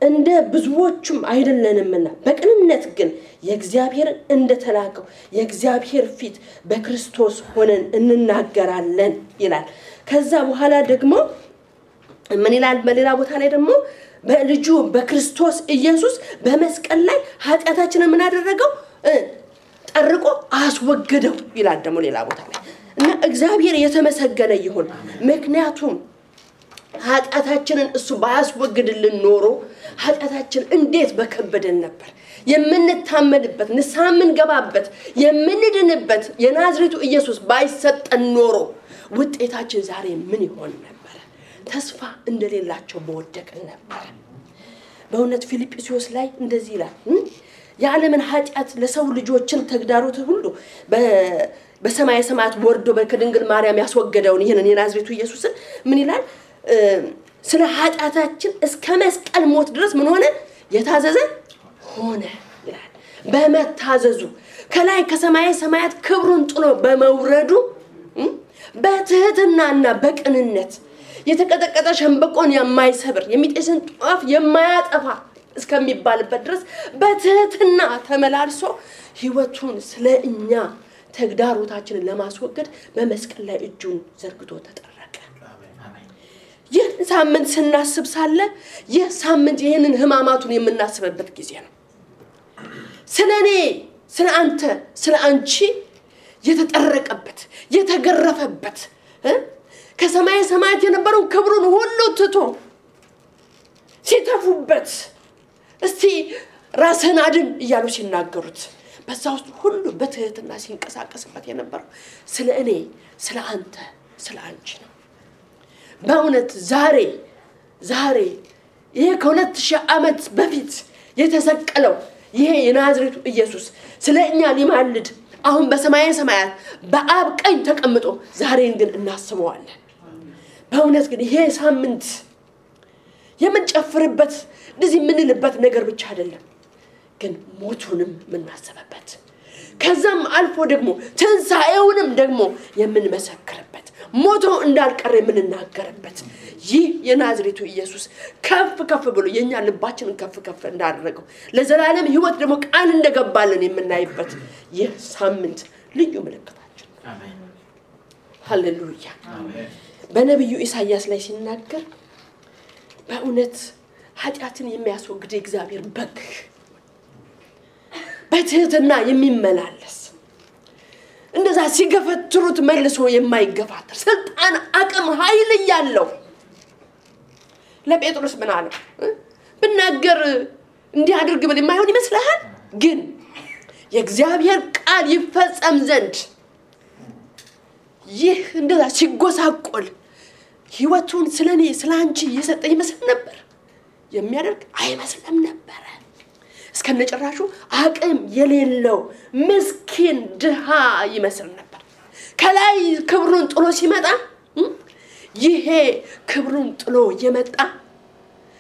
እንደ ብዙዎቹም አይደለንምና በቅንነት ግን የእግዚአብሔር እንደተላከው የእግዚአብሔር ፊት በክርስቶስ ሆነን እንናገራለን ይላል ከዛ በኋላ ደግሞ ምን ይላል በሌላ ቦታ ላይ ደግሞ በልጁ በክርስቶስ ኢየሱስ በመስቀል ላይ ኃጢአታችንን ምን አደረገው ጠርቆ አስወገደው ይላል ደግሞ ሌላ ቦታ ላይ እና እግዚአብሔር የተመሰገነ ይሁን ምክንያቱም ኃጢአታችንን እሱ ባያስወግድልን ኖሮ ኃጢአታችን እንዴት በከበደን ነበር የምንታመንበት ንስሐምን ገባበት የምንድንበት የናዝሬቱ ኢየሱስ ባይሰጠን ኖሮ ውጤታችን ዛሬ ምን ይሆን ነበር ተስፋ እንደሌላቸው በወደቅን ነበር በእውነት ፊልጵስዩስ ላይ እንደዚህ ይላል የዓለምን ኃጢአት ለሰው ልጆችን ተግዳሮት ሁሉ በሰማይ ሰማያት ወርዶ በከድንግል ማርያም ያስወገደውን ይሄንን የናዝሬቱ ኢየሱስን ምን ይላል ስለ ኃጢአታችን እስከ መስቀል ሞት ድረስ ምን ሆነ የታዘዘ ሆነ ይላል በመታዘዙ ከላይ ከሰማይ ሰማያት ክብሩን ጥሎ በመውረዱ በትህትናና በቅንነት የተቀጠቀጠ ሸምበቆን የማይሰብር የሚጤስን ጧፍ የማያጠፋ እስከሚባልበት ድረስ በትህትና ተመላልሶ ህይወቱን ስለኛ ተግዳሮታችንን ለማስወገድ በመስቀል ላይ እጁን ዘርግቶ ተጠረቀ ይህ ሳምንት ስናስብ ሳለ ይህ ሳምንት ይሄንን ህማማቱን የምናስብበት ጊዜ ነው ስለኔ ስለአንተ ስለአንቺ የተጠረቀበት የተገረፈበት ከሰማይ ሰማያት የነበረው ክብሩን ሁሉ ትቶ ሲተፉበት እስቲ ራስህን አድን እያሉ ሲናገሩት በዛ ውስጥ ሁሉ በትህትና ሲንቀሳቀስበት የነበረው ስለኔ ስለአንተ ስለአንቺ ነው በእውነት ዛሬ ይሄ ከ2000 ዓመት በፊት የተሰቀለው ይሄ የናዝሬቱ ኢየሱስ ስለኛ ሊማልድ አሁን በሰማይ ሰማያት በአብ ቀኝ ተቀምጦ ዛሬን ግን እናስበዋለን በእውነት ግን ይሄ ሳምንት የምንጨፍርበት እንደዚህ ምንልበት ነገር ብቻ አይደለም ግን ሞቱንም ምናሰበበት ከዛም አልፎ ደግሞ ትንሳኤውንም ደግሞ የምንመሰክርበት ሞቶ እንዳልቀረ የምንናገርበት ይህ የናዝሬቱ ኢየሱስ ከፍ ብሎ የኛ ልባችንን ከፍ እንዳደረገው ለዘላለም ህይወት ደግሞ ቃል እንደገባልን የምናይበት ይህ ሳምንት ልዩ ምልክታችን አሜን ሃሌሉያ አሜን በነብዩ ኢሳይያስ ላይ ሲናገር በእውነት ኃጢአትን የሚያስወግድ እግዚአብሔር በግ በትህትና የሚመላለስ እንደዛ ሲገፈትሩት መልሶ የማይገፋተር ስልጣን አቅም ኃይል ያለው ለጴጥሮስ ምን አለው ብናገር እንዲያደርግ ብል የማይሆን ይመስልሃል ግን የእግዚአብሔር ቃል ይፈጸም ዘንድ ይህ እንደዛ ሲጎሳቆል ህይወቱን ስለኔ ስላንቺ የሰጠ ይመስል ነበር? የሚያደርግ አይመስልም ነበር። እስከነጨራሹ አቅም የሌለው ምስኪን ድሃ ይመስል ነበር። ከላይ ክብሩን ጥሎ ሲመጣ ይሄ ክብሩን ጥሎ የመጣ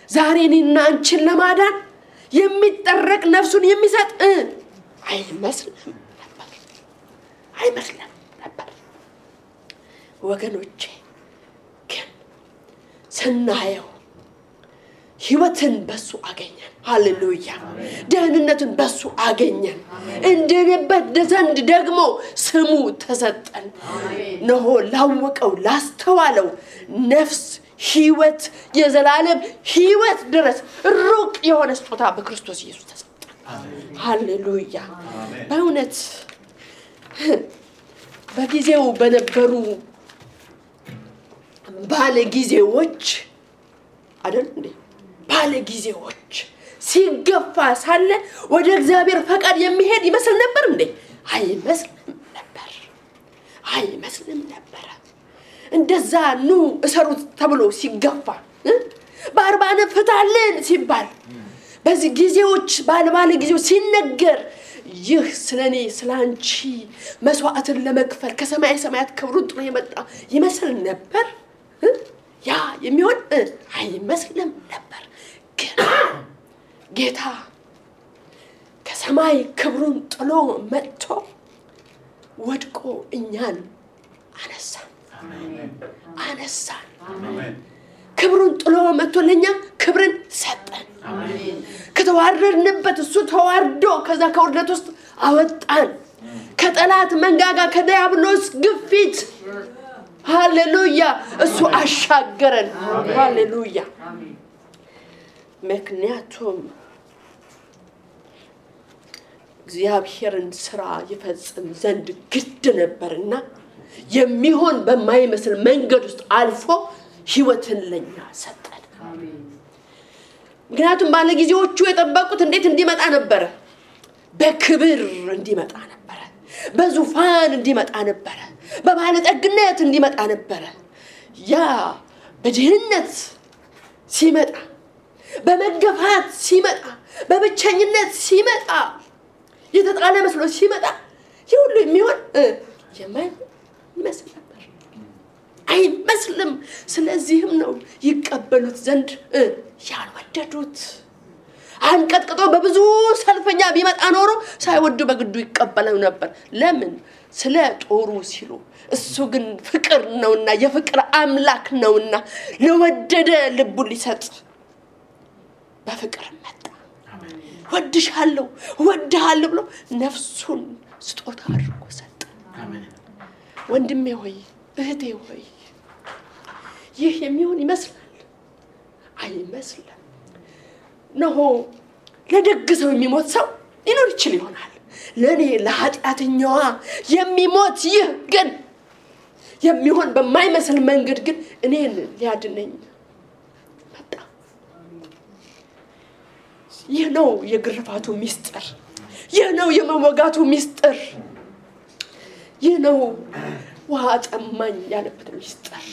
ዛሬ እኔና አንቺን ለማዳን የሚጠረቅ ነፍሱን የሚሰጥ አይመስልም ነበር። ወገኖቼ ግን ስናየው ህይወትን በሱ አገኘን። ሃሌሉያ! ደህንነትን በሱ አገኘን። እንድንበት ዘንድ ደግሞ ስሙ ተሰጠን። ነው ላወቀው ላስተዋለው ነፍስ ህይወት የዘላለም ህይወት ድረስ ሩቅ የሆነ ስጦታ በክርስቶስ ኢየሱስ ተሰጠን። ሃሌሉያ! በእውነት በጊዜው በነበሩ ባለጊዜዎች አይደል እንዴ? ባለጊዜዎች ሲገፋ ሳለ ወደ እግዚአብሔር ፈቃድ የሚሄድ ይመስል ነበር እንዴ? አይመስልም ነበር። እንደዛ ኑ እሰሩት ተብሎ ሲገፋ በአርባነ ፍታልን ሲባል በዚህ ጊዜዎች ባለ ጊዜው ሲነገር ይህ ስለኔ ስላንቺ መስዋዕትን ለመክፈል ከሰማይ ሰማያት ክብሩን ጥሎ የመጣ ይመስል ነበር። ያ የሚሆን አይመስልም ነበር። ግን ጌታ ከሰማይ ክብሩን ጥሎ መጥቶ ወድቆ እኛን አነሳን። ክብሩን ጥሎ መጥቶ ለኛ ክብርን ሰጠን። ከተዋረድንበት እሱ ተዋርዶ ከዛ ከውርደት ውስጥ አወጣን። ከጠላት መንጋጋ ከዲያብሎስ ግፊት ሃሌሉያ እሱ አሻገረን። ሃሌሉያ! ምክንያቱም እግዚአብሔርን ስራ ይፈጽም ዘንድ ግድ ነበርና የሚሆን በማይመስል መንገድ ውስጥ አልፎ ህይወትን ለኛ ሰጠን። ምክንያቱም ባለጊዜዎቹ የጠበቁት እንዴት እንዲመጣ ነበር? በክብር እንዲመጣ ነበር። በዙፋን እንዲመጣ ነበር። በባለጠግነት እንዲመጣ ነበር። ያ በድህነት ሲመጣ፣ በመገፋት ሲመጣ፣ በብቸኝነት ሲመጣ፣ የተጣለ መስሎ ሲመጣ ይሁሉ የሚሆን የማይመስል ነበር። አይመስልም። ስለዚህም ነው ይቀበሉት ዘንድ ያልወደዱት። አንቀጥቅጦ በብዙ ሰልፈኛ ቢመጣ ኖሮ ሳይወዱ በግዱ ይቀበለው ነበር። ለምን? ስለ ጦሩ ሲሉ። እሱ ግን ፍቅር ነውና የፍቅር አምላክ ነውና ለወደደ ልቡ ሊሰጥ በፍቅር መጣ። ወድሻለሁ ወድሃለሁ ብሎ ነፍሱን ስጦታ አድርጎ ሰጠ። ወንድሜ ሆይ እህቴ ሆይ ይህ የሚሆን ይመስላል? አይመስልም። ነው ለደግ ሰው የሚሞት ሰው ሊኖር ይችል ይሆናል። ለኔ ለኃጢአተኛዋ የሚሞት ይህ ግን የሚሆን በማይመስል መንገድ ግን እኔን ሊያድነኝ መጣ። ይህ ነው የግርፋቱ ሚስጥር። ይህ ነው የመወጋቱ ሚስጥር። ይህ ነው ውሃ ጠማኝ ያለበት ሚስጥር።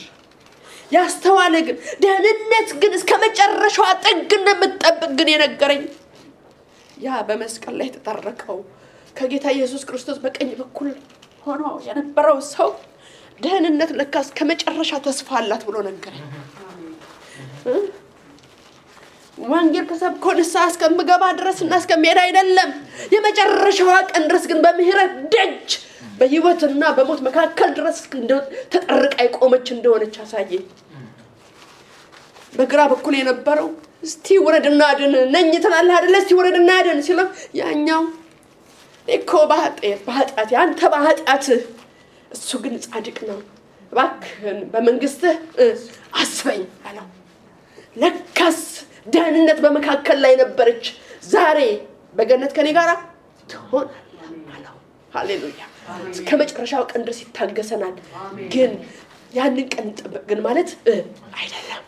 ያስተዋለ ግን ደህንነት ግን እስከመጨረሻው ጥግ እንደምትጠብቅ ግን የነገረኝ ያ በመስቀል ላይ ተጠረቀው ከጌታ ኢየሱስ ክርስቶስ በቀኝ በኩል ሆኖ የነበረው ሰው ደህንነት ለካስ ከመጨረሻ ተስፋ አላት ብሎ ነገረኝ። ወንጌል ከሰብኮ ንስሐ እስከምገባ ድረስና እስከምሄድ አይደለም፣ የመጨረሻው ቀን ድረስ ግን በምህረት ደጅ በህይወትና በሞት መካከል ድረስ ተጠርቃ የቆመች እንደሆነች አሳየኝ። በግራ በኩል የነበረው እስቲ ወረድና አድን ነኝ ትላለህ አይደል? እስቲ ወረድና አድን ሲለው ያኛው እኮ በኃጢአት ያንተ በኃጢአት እሱ ግን ጻድቅ ነው፣ እባክህን በመንግስትህ አስበኝ አለው። ለካስ ደህንነት በመካከል ላይ ነበረች። ዛሬ በገነት ከኔ ጋር ትሆናለህ አለው። ሃሌሉያ! እስከመጨረሻው ቀን ድረስ ይታገሰናል። ግን ያንን ቀን ጠብቅ ግን ማለት አይደለም።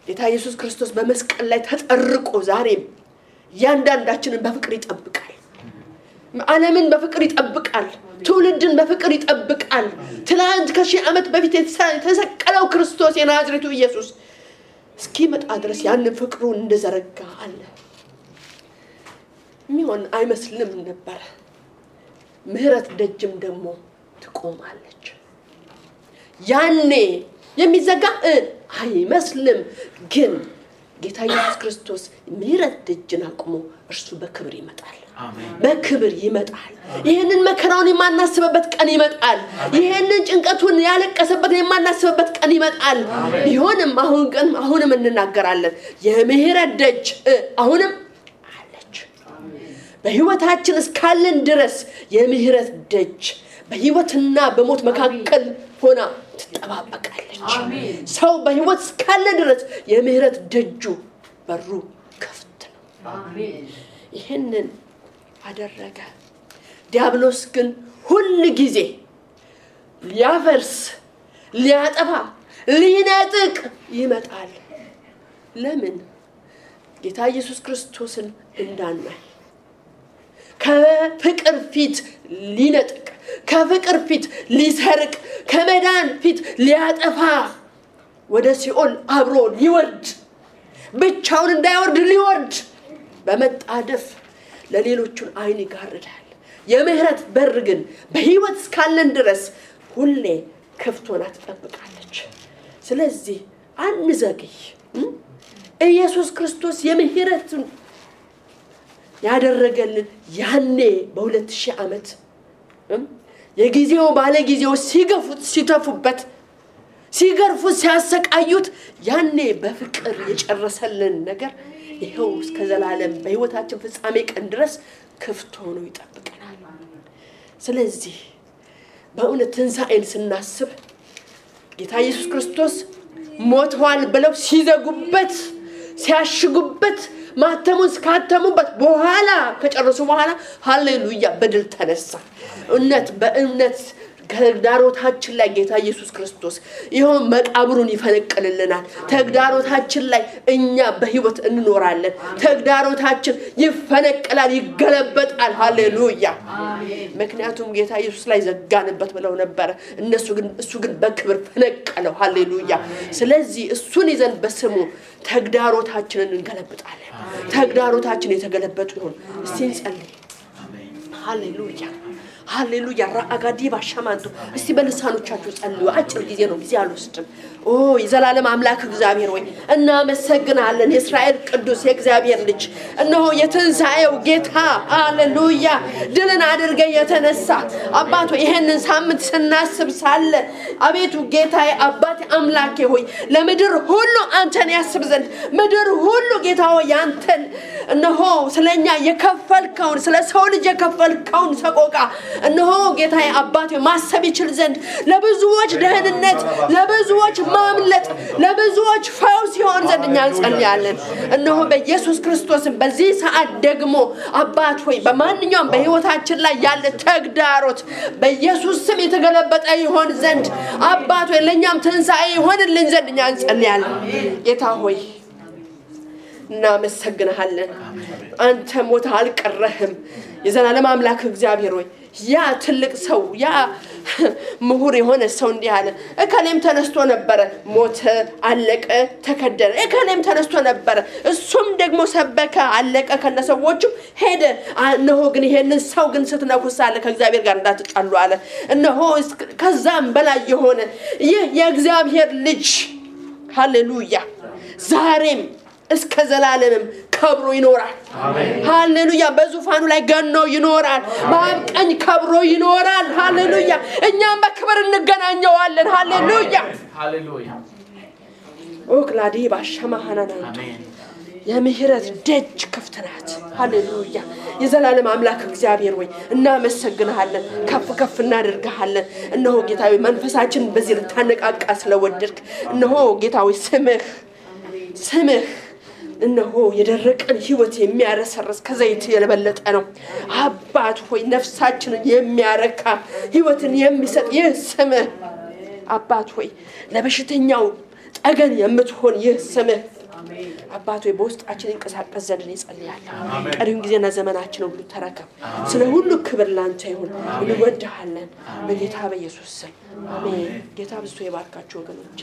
ጌታ ኢየሱስ ክርስቶስ በመስቀል ላይ ተጠርቆ ዛሬም ያንዳንዳችንን በፍቅር ይጠብቃል። ዓለምን በፍቅር ይጠብቃል ትውልድን በፍቅር ይጠብቃል ትላንት ከሺህ ዓመት በፊት የተሰቀለው ክርስቶስ የናዝሬቱ ኢየሱስ እስኪመጣ ድረስ ያን ፍቅሩን እንደዘረጋ አለ ሚሆን አይመስልም ነበር ምህረት ደጅም ደግሞ ትቆማለች ያኔ የሚዘጋ አይመስልም ግን ጌታ ኢየሱስ ክርስቶስ ምህረት ደጅን አቁሞ እርሱ በክብር ይመጣል በክብር ይመጣል ይሄንን መከራውን የማናስበበት ቀን ይመጣል ይሄንን ጭንቀቱን ያለቀሰበት የማናስበበት ቀን ይመጣል ቢሆንም አሁንም እንናገራለን የምህረት ደጅ አሁንም አለች በህይወታችን እስካለን ድረስ የምህረት ደጅ በህይወትና በሞት መካከል ሆና ትጠባበቃለች ሰው በህይወት እስካለ ድረስ የምህረት ደጁ በሩ ክፍት ነው ይሄንን አደረገ ዲያብሎስ ግን ሁሉ ጊዜ ሊያፈርስ ሊያጠፋ ሊነጥቅ ይመጣል ለምን ጌታ ኢየሱስ ክርስቶስን እንዳናይ ከፍቅር ፊት ሊነጥቅ ከፍቅር ፊት ሊሰርቅ ከመዳን ፊት ሊያጠፋ ወደ ሲኦል አብሮ ሊወርድ ብቻውን እንዳይወርድ ሊወርድ በመጣደፍ ለሌሎቹን አይን ይጋርዳል የምህረት በር ግን በህይወት እስካለን ድረስ ሁሌ ክፍት ሆና ትጠብቃለች ስለዚህ አንዘግይ ኢየሱስ ክርስቶስ የምህረትን ያደረገልን ያኔ በ2000 ዓመት የጊዜው ባለጊዜው ሲገፉት ሲተፉበት ሲገርፉት ሲያሰቃዩት ያኔ በፍቅር የጨረሰልን ነገር ይሄው እስከ ዘላለም በህይወታችን ፍጻሜ ቀን ድረስ ክፍት ሆኖ ይጠብቀናል ስለዚህ በእውነት ትንሣኤን ስናስብ ጌታ ኢየሱስ ክርስቶስ ሞቷል ብለው ሲዘጉበት ሲያሽጉበት ማተሙን ስካተሙበት በኋላ ከጨረሱ በኋላ ሃሌሉያ በድል ተነሳ በእምነት ተግዳሮታችን ላይ ጌታ ኢየሱስ ክርስቶስ ይሄው መቃብሩን ይፈነቅልልናል ተግዳሮታችን ላይ እኛ በህይወት እንኖራለን ተግዳሮታችን ይፈነቅላል ይገለበጣል ሃሌሉያ ምክንያቱም ጌታ ኢየሱስ ላይ ዘጋንበት ብለው ነበር እሱ ግን በክብር ፈነቀለው ሃሌሉያ ስለዚህ እሱን ይዘን በስሙ ተግዳሮታችንን እንገለብጣለን ተግዳሮታችን የተገለበጡ ይሁን እስቲ እንጸልይ ሃሌሉያ ሃሌሉያ ራአጋዲ ባሻማንቱ እስቲ በልሳኖቻችሁ ጸልዩ አጭር ጊዜ ነው ጊዜ አልወስድም የዘላለም አምላክ እግዚአብሔር ሆይ እናመሰግናለን የእስራኤል ቅዱስ የእግዚአብሔር ልጅ እነሆ የትንሣኤው ጌታ ሃሌሉያ ድልን አድርገ የተነሳ አባቶ ይሄንን ሳምንት ስናስብ ሳለ አቤቱ ጌታዬ አባቴ አምላኬ ሆይ ለምድር ሁሉ አንተን ያስብ ዘንድ ምድር ሁሉ ጌታ ሆይ አንተን እነሆ ስለኛ የከፈልከውን ስለ ሰው ልጅ የከፈልከውን ሰቆቃ እነሆ ጌታዬ አባቴ ማሰብ ይችል ዘንድ ለብዙዎች ደህንነት ለብዙዎች ማምለጥ ለብዙዎች ፈውስ ይሆን ዘንድ እኛ እንጸልያለን እነሆ በኢየሱስ ክርስቶስ በዚህ ሰዓት ደግሞ አባት ሆይ በማንኛውም በህይወታችን ላይ ያለ ተግዳሮት በኢየሱስ ስም የተገለበጠ ይሆን ዘንድ አባት ሆይ ለኛም ትንሣኤ ይሆንልን ዘንድ እኛ እንጸልያለን ጌታ ሆይ እናመሰግንሃለን አንተ ሞት አልቀረህም የዘላለም አምላክ እግዚአብሔር ሆይ ያ ትልቅ ሰው ያ ምሁር የሆነ ሰው እንዲህ አለ እከሌም ተነስቶ ነበር ሞተ አለቀ ተከደነ እከሌም ተነስቶ ነበር እሱም ደግሞ ሰበከ አለቀ ከነሰዎቹ ሄደ እነሆ ግን ይሄንን ሰው ግን ስትነኩሳለ ከእግዚአብሔር ጋር እንዳትጣሉ አለ እነሆ ከዛም በላይ የሆነ ይህ የእግዚአብሔር ልጅ ሃሌሉያ ዛሬም እስከ ዘላለምም ከብሮ ይኖራል ሃሌሉያ በዙፋኑ ላይ ገኖ ይኖራል በአብቀኝ ከብሮ ይኖራል ሃሌሉያ እኛም በክብር እንገናኘዋለን ሃሌሉያ ኦክላዲ ባሻማሃናና አሜን የምህረት ደጅ ክፍት ናት ሃሌሉያ የዘላለም አምላክ እግዚአብሔር ሆይ እናመሰግንሃለን ከፍ እናደርግሃለን እነሆ ጌታዬ መንፈሳችን በዚህ ልታነቃቃ ስለወደድክ እነሆ ጌታዬ ስምህ እነሆ የደረቀን ህይወት የሚያረሰርስ ከዘይት የለበለጠ ነው አባት ሆይ ነፍሳችንን የሚያረካ ህይወትን የሚሰጥ ይህ ስምህ አባት ሆይ ለበሽተኛው ጠገን የምትሆን ይህ ስምህ አባቶ በውስጣችን እንቀሳቀስ ዘንድ እንጸልያለን። ቀሪውን ጊዜና ዘመናችን ሁሉ ተረከብ። ስለ ሁሉ ክብር ላንተ ይሁን። እንወድሃለን በጌታ በኢየሱስ ስም አሜን። ጌታ ብዙ ይባርካችሁ ወገኖች።